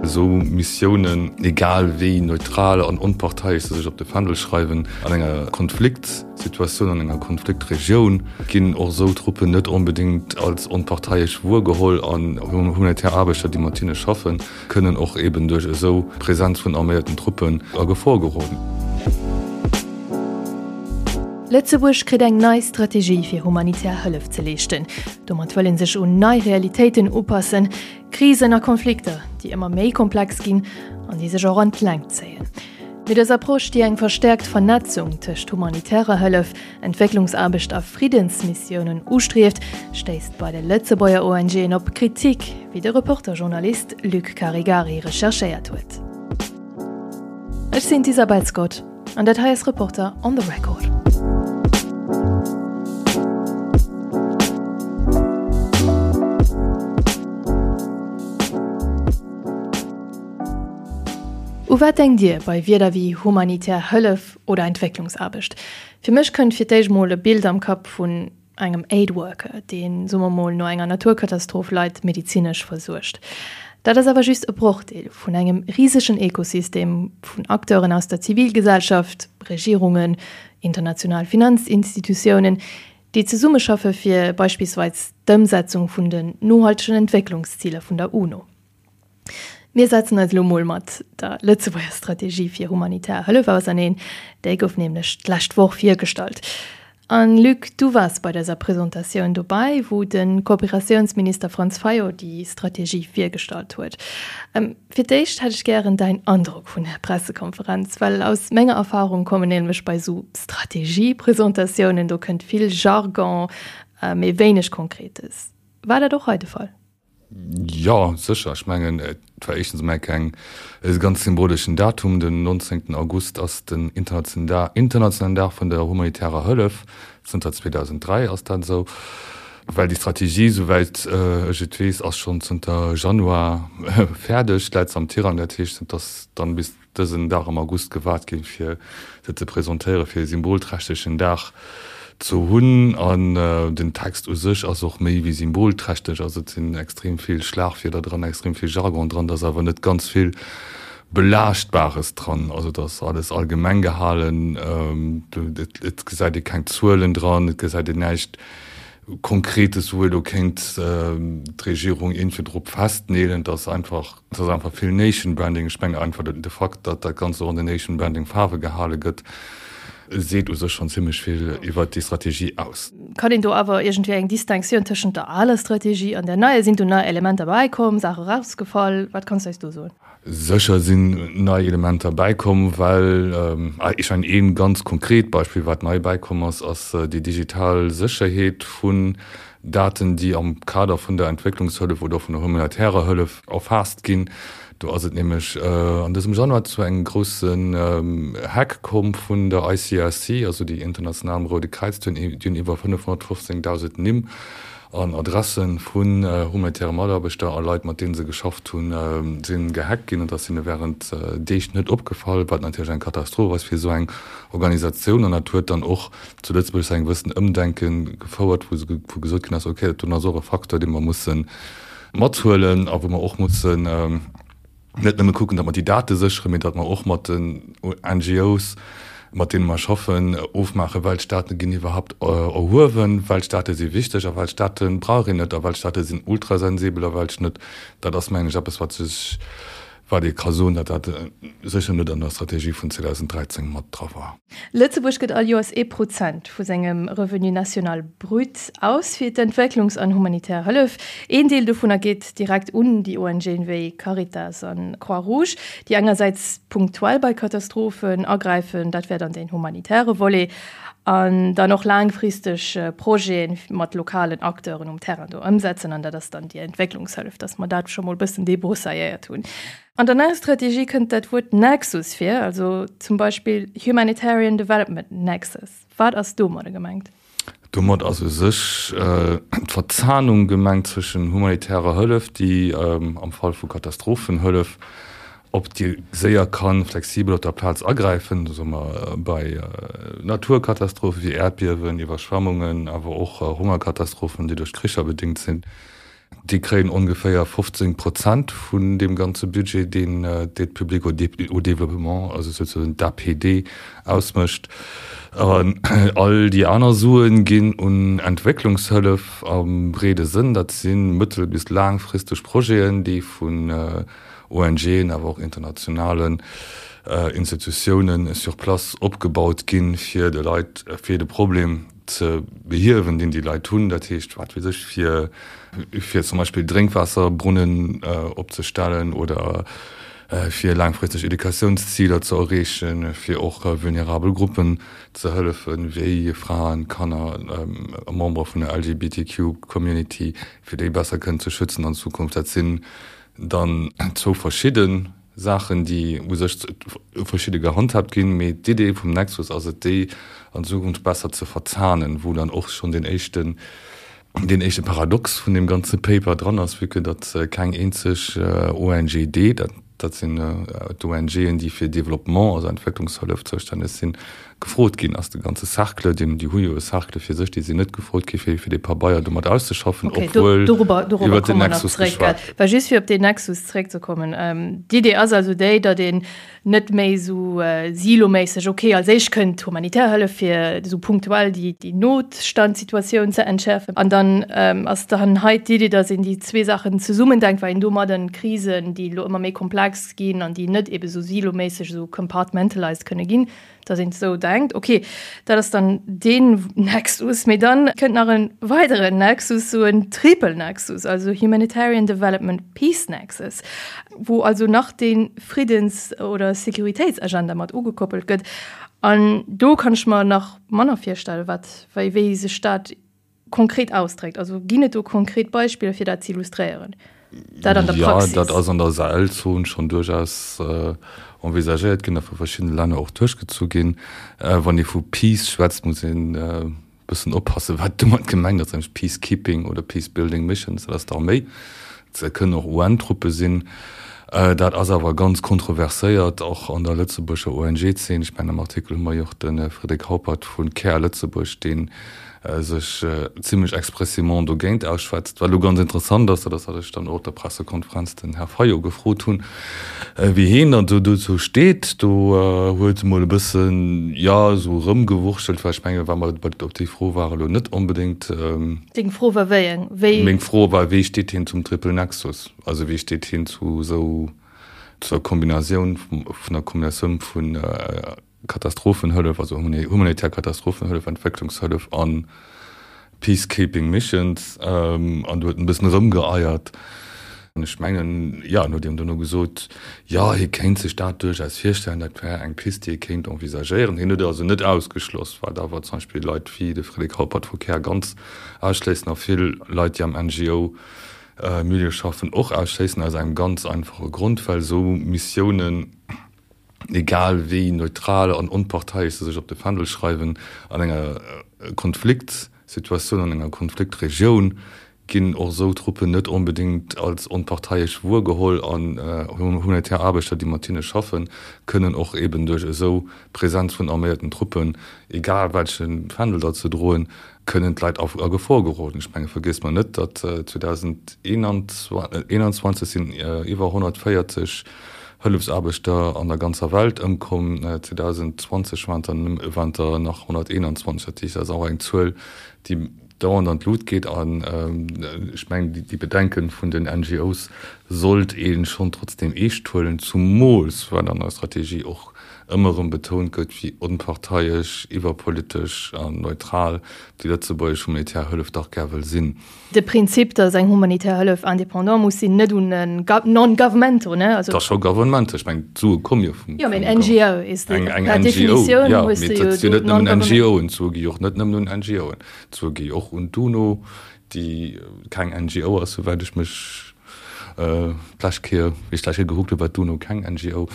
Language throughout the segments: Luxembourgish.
Esou Missiounen, egal wéi neutral an onparteiesch se sech op de Fändel schreiwen, an enger Konfliktsituatioun, an enger Konfliktregioun, ginn och esou Truppen net onbedéngt als onparteiesch wuergeholl an humanitär Aarbechter, déi mat hinne schaffen, kënnen och eben duerch esou Präsenz vun arméierten Truppen a Gefor geroden. Lëtzebuerg kritt eng nei Strategie fir humanitär Hëllef ze leeschten. Domat wëll ee sech un nei Realitéiten upassen, Krisen a Konflikter, déi ëmmer méi komplex ginn an déi sech och an d'Längt zéien. Mee dës Approche, déi eng verstäerkt Vernetzung tëscht humanitärer Hëllef, Entwécklungsaarbecht a Friddensmissiounen ustrieft, stéisst bei de Lëtzebuerger ONGen op Kritik, wéi de Reporter-Journalist Luc Caregari recherchéiert huet. Ech sinn d'Isabel Scott an dat hei ass Reporter on the Record. U wat denkt Dir bei Wierder wéi humanitär Hëllef oder Entwécklungsaarbecht? Fir mech kënnt fir d'éischt mol e Bild am Kapp vun engem Aid Worker, deen, soe mer mol, no enger Naturkatastroph Leit medezinesch versuergt. Dat ass awer just e Brochdeel vun engem risegen Ekosystem vun Acteuren aus der Zivilgesellschaft, Regierungen, international Finanzinstitutiounen, déi zesummeschaffe fir beispillsweis d'Ëmsetzung vun den nohaltegen Entwécklungsziler vun der UNO. Mir setzen eis elo mol mat der Lëtzebuerger Strategie fir humanitär Hëllef auserneen. Déi gouf nämlech d'lescht Woch virgestallt. An Luc, du waars bei dëser Presentatioun dobäi, wou de Kooperatiounsminister Franz Fayot déi Strategie virgestallt huet. Fir d'éischt hätt ech gären däin Androck vun der Pressekonferenz, well aus menger Erfarung kommen nämlech bei esou Strategiepresentatiounen, do kënnt vill Jargon, mee wéineg Konkretes. War dat och hei de Fall? Jo, sécher. Ech mengen, et war éischtens emol keng, e ganz symboleschen Datum. Den 19. August ass den internationalen Dag vun der humanitärer Hëllef. Zënter 2003 ass dat esou. Well déi Strategie, souwäit ech et weess, ass schonn zënter Januar fäerdeg, läit se am Tirang. Dat heescht, et ass dann bis dësen Dag am August gewaart ginn, fir se ze presentéieren, fir e symbolträchtegen Dag ze hunn. An den Text u sech ass och méi wéi symbolträchteg. Also et sinn extrem vill Schlagwierder dran, extrem vill Jargon dran, et ass awer net ganz vill Belaaschtbares dran. Also et ass alles allgemeng gehalen, et gesäit ee keng Zuelen dran, et gesäit een näischt Konkretes, wou ee lo kéint d'Regierung iergendwéi drop festneelen. Et ass einfach. Et ass einfach vill Nation Branding. Ech mengen einfach de Fakt, datt dat Ganzt och an den Nation Branding Faarwe gehale gëtt, seet u sech schonn zimmlech vill iwwert déi Strategie aus. Kann een do awer iergendwéi eng Distinctioun tëschent der aler Strategie an der neier? Sinn do nei Elementer bäikomm, Saache erausgefall? Wat kanns du eis do soen? Sécher sinn nei Elementer bäikomm, well, ech mengen ee ganz konkret Beispill, wat nei bäikomm ass, ass déi digital Sécherheet vun Daten, déi am Kader vun der Entwécklungshëllef oder vun der humanitärer Hëllef erfaasst ginn. Do ass et nämlech an dësem Januar zu engem groussen Hack komm vun der ICRC, also déi international Roude Kräiz. Déi hunn iwwer 515.000 Nimm an Adresse vun humanitäre Mataarbechter a Leit, mat deene se geschafft hunn, si gehackt ginn. An dat ass hinne wärend Deeg net opgefall, wat natierlech eng Katastroph ass fir esou eng Organisatioun. An dat huet dann och zu Lëtzebuerg zu engem gewëssenen Ëmdenke gefouert, wou wou gesot ginn ass, okay, dat doen ass och e Facteur, dee mer musse mathuelen a wou mer och mussen net nëmme kucken, datt mer déi Date sécheren, mee datt mer och mat den NGOs, mat deene mer schaffen, ofmaachen, welch Date ginn iwwerhaupt erhuewen, welch Date si wichteg a welch Date brauch een net a welch Date sinn ultrasensibel a welch net. Dat ass, mengen ech, eppes, wat sech Wat ee ka soen, datt dat sécher net an der Strategie vun 2013 mat dra war. Lëtzebuerg gëtt all Joers ee Prozent vu sengem Revenu national brut aus fir d'Entwécklungs an humanitär Hëllef. Een Deel dovunner geet direkt un déi ONGen wéi Caritas an Croix Rouge, déi engersäits punktuell bei Katastrophen agräifen, dat wär dann deen humanitäre Volet, an dann och laangfristeg Projete mat lokalen Acteuren um Terrain do ëmsetzen, an dat ass dann déi Entwécklungshëllef, dass mer dat scho mol e bëssen débroussailléiert hunn. An der neier Strategie kënnt dat Wuert Nexus vir, also zum Beispill Humanitarian Development Nexus. Wat ass domadder gemengt? Domat ass u sech d'Verzahnung gemengt zwëschen humanitärer Hëllef, déi am Fall vu Katastrophenhëllef op déi séier kann flexibel op der Plaz agräifen, soe mer bei Naturkatastrophe wéi Äerdbiewen, Iwwerschwemmungen, awer och Hongerkatastrophen, déi duerch Kricher bedéngt sinn. Déi kréien ongeféier 15 Prozent vun deem ganze Budget, deen d'Aide publique au développement, also souzesoen d'APD, ausmécht. An all déi aner Sue ginn un Entwécklungshëllef am breede Sënn. Dat si mëttel bis laangfristeg Projeten, déi vun ONGen, awer och internationalen Institutiounen sur place opgebaut ginn, fir de Leit, fir de Problem ze behiewen, deen déi Leit hunn, dat heescht, wat weess ech, fir, fir zum Beispill Drénkwaasserbrunnen opzestellen oder fir laangfristeg Educatiounsziler ze erreechen, fir och vulnerabel Gruppen ze hëllefen, wéi Fraen, Kanner, Membere vun der LGBTQ-Community, fir déi besser kënnen ze schützen an Zukunft. Dat sinn dann zwou verschidde Saachen, déi u sech verschidde gehandhaabt ginn, mee d'Idee vum Nexus ass et, déi an Zukunft besser ze verzahnen, wou dann och schonn deen éischten, deen éischte Paradox vun deem ganze Paper dran ass, vue que datt keng eenzeg ONGD, dat, dat sinn d'ONGen, déi fir Développement, also Entwécklungshëllef zoustänneg sinn, gefrot ginn ass. De ganze Cercle, deen, déi hu jo e Cercle fir sech, déi sinn net gefrot gi fir, fir dee Pabeier do mat auszeschaffen, Okay, do, obwuel dorobber, dorobber iwwert den komme mer nach Nexus zréck, gell. geschwat gëtt. Well just fir op deen Nexus zréckzekommen, d'Idee ass also déi, datt een net méi esou siloméisseg, okay, als éischt kënnt d'humanitär Hëllef fir esou punktuell déi, déi Notstandssituatioun ze entschäerfen an dann ass dann hei d'Idee, datt een déi zwee Saachen zesummendenkt, well een domadden Krisen, déi elo ëmmer méi komplex ginn an déi net ebe sou siloméisseg, esou compartmentalized kënne ginn, dass een esou denkt, okay, dat ass dann deen Nexus, mee dann kënnt nach e weideren Nexus, esou en Triple Nexus, also Humanitarian Development Peace Nexus, wou also nach dee Friddens oder Sécuritéitsagenda mat ugekoppelt gëtt. An do kann ech mer nach manner virstellen, wat, wéi, wéi sech dat konkret ausdréckt. Also ginn et do konkret Beispiller, fir dat ze illustréieren? Dat an der Praxis? Jo, dat ass an der Sahelzon schonn duerchaus envisagéiert ginn a vu verschiddene Länner och duerchgezu ginn. Wann ee vu Peace schwätzt, muss een e bëssen oppassen, wat domat gemengt ass, nämlech Peacekeeping oder Peacebuilding Missions, dat ass d'Arméi. Dat kënnen och UN-Truppe sinn. Dat ass awer ganz kontroverséiert, och an der lëtzebuerger ONG-Zeen. Ech mengen, am Artikel hu mer jo och de Frédéric Haupert vu Care Lëtzebuerg, dee sech zimlech expressément dogéint ausschwätzt. Wat elo ganz interessant ass, dat ass, wat ech dann och op der Pressekonferenz den Här Fayot gefrot hunn, wéi heen dann do dozou steet. Do huet e mol e bëssen, jo, esou erëmgewurschtelt, well ech mengen, wa mer op déi Fro war elo net onbedéngt. Deng Fro war wéi eng? Wéi? Meng Fro war, wéi steet hien zum Triple Nexus? Also wéi steet hien zu esou, zur Kombinatioun, vun der Kombinatioun vun Katastrophenhëllef, also humanitär Katastrophenhëllef, Entwécklungshëllef a Peacekeeping Missions? An do huet en e bëssen erëmgeeiert. An ech mengen, jo, en huet eben dono gesot, jo, hie kéint sech dat duerchaus virstellen, dat wär eng Pist, déi ee kéint envisagéieren. Hien huet et also net ausgeschloss, wat awer zum Beispill Leit wéi de Frédéric Haupert vu Care ganz ausschléissen a vill Leit, déi am NGO-Milieu schaffen, och ausschléissen, aus engem ganz einfache Grond, well esou Missiounen, egal wéi neutral an onparteiesch se sech op de Fändel schreiwen, an enger Konfliktsituatioun, an enger Konfliktregioun ginn och esou Truppen net onbedéngt als onparteiesch wuergeholl an humanitär Aarbechter, déi mat hinne schaffen, kënnen och eben duerch esou Präsenz vun arméierten Truppen, egal welche Fändel datt se droen, kënnen d'Leit a Gefor geroden. Ech menge vergiesst mer net, datt 2021 sinn iwwer 140 Hëllefsaarbechter an der ganzer Welt ëmkomm, 2020 waren der nach 121. Dat heescht, dat ass och eng Zuel, déi dauernd an d'Lut geet. An ech mengen, déi Bedenke vun den NGOs sollt ee schonn trotzdeem eescht huelen, zumools well an der Strategie och ëmmer erëm betount gëtt, wéi onparteiesch, iwwerpolitesch an neutral déi lëtzebuergesch humanitär Hëllef dach gär wëll sinn. De Prinzip, datt eng humanitär Hëllef indépendant muss sinn, net un e non-governmental, ne? Et ass scho governmental, ech mengen, d'Sue komme jo vum. Jo, mee en NGO is de, per Definitioun hues de jo do net nëmmen NGOen, d'Sue gi jo och net nëmmen un NGOen, d'Sue gi och un d'UNO, déi keng NGO ass, souwäit ech mech d'lescht Kéier, wéi ech d'lescht Kéier gekuckt hunn, war d'UNO keng NGO.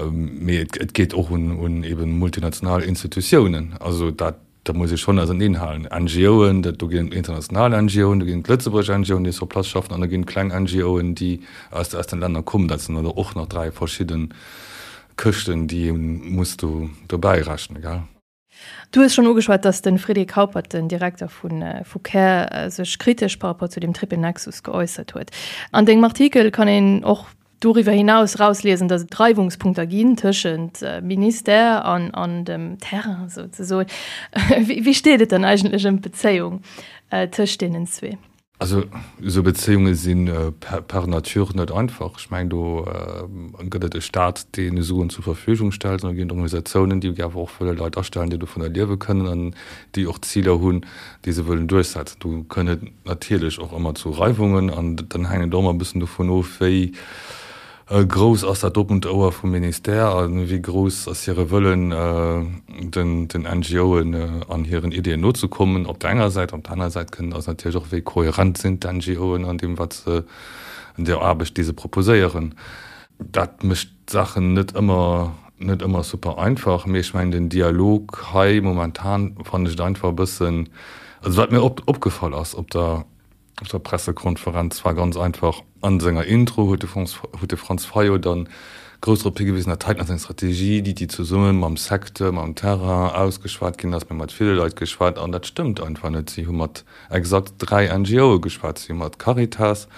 Mee et geet och un eben multinational Institutiounen. Also dat, dat muss ee schonn auserneenhalen. NGOen, dat do ginn et international NGOen, do ginn et lëtzebuergesch NGOen, déi sur place schaffen, an da ginn et kleng NGOen, déi aus aus den Länner kommen. Dat sinn dann och nach 3 verschidde Këschten, déi ee muss do dobäi rechnen, gell. Du hues schonn ugeschwat, datt de Frédéric Haupert, den Direkter vu Care, sech kritesch par rapport zu dem Triple Nexus geäussert huet. An dengem Artikel kann een och doriwwer hinaus erausliesen, datt et Reiwungspunkter ginn tëschent Ministère an dem Terrain souzesoen. Wéi steet et dann eigentlech ëm d'Bezéiung tëscht deenen zwee? Also esou Bezéiunge si par nature net einfach. Ech mengen, do gëtt et e Staat, dee Suen zur Verfügung stellt, an da ginn et Organisatiounen, déi awer och wëlle Leit astellen, déi dovunner liewe kënnen an déi och Ziler hunn, déi se wëllen duerchsetzen. Do kënnt et natierlech och ëmmer zu Reiwungen an dann hänkt et och ëmmer e bëssen dovun of, wéi Grouss ass dat oppent Ouer vum Ministère a wéi grouss ass hire Wëllen, den NGOen an hiren Ideeën nozekommen op der enger Säit. Op der anerer Säit kënnen ass natierlech och, wéi kohärent sinn d'NGOen an deem, wat se, an der Aarbecht, déi se proposéieren. Dat mécht d'Saachen net ëmmer, net ëmmer super einfach. Mee ech mengen, den Dialog hei momentan fannen ech et einfach e bëssen, also wat mir opgefall ass op der, Op der Pressekonferenz war ganz einfach, an senger Intro huet de huet de Franz Fayot dann grouss drop higewisen, dat heiten ass eng Strategie, déi déi zesumme mam Secteur, mam Terrain ausgeschwat ginn ass, mir hu mat ville Leit geschwat an dat stëmmt einfach net. Si hu mat exakt 3 NGOe geschwat, si hu mat Caritas,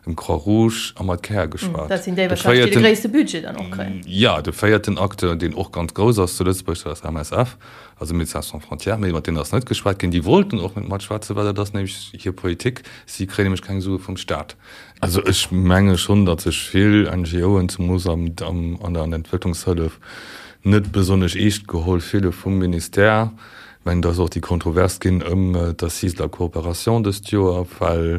dem Croix Rouge a mat Care geschwat. Dat sinn déi wahrscheinlech, déi de gréisste Budget dann och kréien. Jo, de véierten Acteur, deen och ganz grouss ass zu Lëtzebuerg, dat ass MSF. Also Médecins sans frontières, mee mat deenen ass net geschwat ginn. Déi wollten och net matschwätzen, well dat ass nämlech hir Politik. Si kréien nämlech keng Sue vum Staat. Also ech menge schonn, datt sech vill NGOen, zemoos an der Entwécklungshëllef, net besonnesch eescht geholl fille vum Ministère. Ech mengen, et ass och déi Kontrovers ginn ëm d'Assises de la coopération dëst Joer, well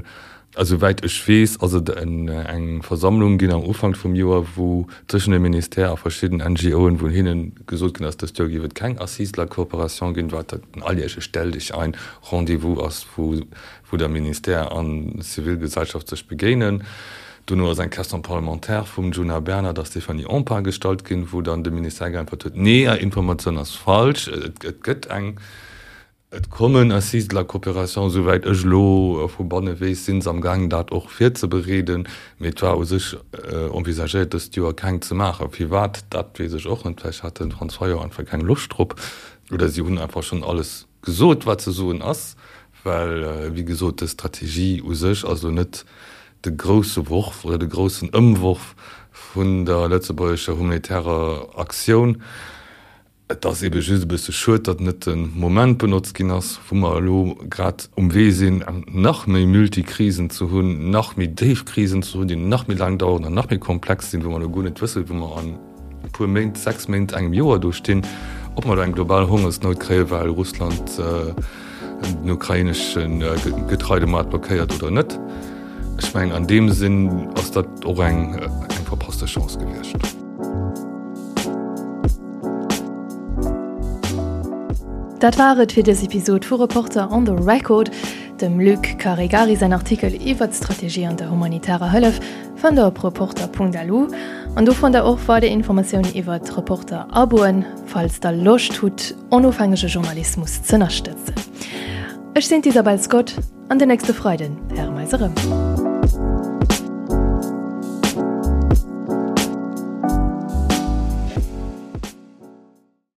A souwäit ech weess, ass et eng Versammlung ginn am Ufank vum Joer, wou tëschent dem Ministère a verschidden NGOen, wou hinne gesot ginn ass, dëst Joer géif et keng Assises de la coopération ginn, wat en alljährleche Stelldichein, Rendez-vous ass, wou wou der Ministère an Zivilgesellschaft sech begéinen. Dono ass eng Question parlementaire vum Djuna Bernard a Stéphanie Empain gestallt ginn, wou dann de Ministère geäntwert huet, Nee, Är Informatioun ass falsch, et gëtt eng. Et kommen Assises de la coopération, esouwäit ech elo vu banne weess, si se am gaangen dat och virzebereeden, mee et war u sech envisagéiert dëst Joer keng ze maachen. Firwat, dat weess ech och net, vläicht hat de Franz Fayot einfach keng Loscht drop oder si hunn einfach schonn alles gesot wat ze soen ass, well wéi gesot dës Strategie u sech ass elo net de grousse Worf oder de groussen Ëmworf vun der lëtzebuergescher humanitärer Aktioun. Et ass ebe just e bësse schued, datt net de Moment benotzt ginn ass, wou mer elo grad um Wee sinn, nach méi Multikrisen ze hunn, nach méi déif Krisen ze hunn, déi nach méi laang daueren an nach méi komplex sinn, wou mer elo guer net wëssen, wou mer an e puer Méint, 6 Méint, engem Joer do stinn, ob mer do eng global Hongersnout kréien, well Russland den ukrainesche Getreidemoart blockéiert oder net. Ech mengen, an deem Sinn ass dat och eng verpasste Chance gewiescht. Dat war et fir dës Episod vu Reporter on the Record. Dem Luc Caregari säin Artikel iwwer d'Strategie an der humanitärer Hëllef fannt der op reporter.lu. An do fannt der och weider Informatiounen iwwer d'Reporter-Aboen, falls der Loscht hutt, onofhängege Journalismus z'ënnerstëtzen. Ech sinn d'Isabel Scott. An den nächste Freiden héiere mer eis erëm.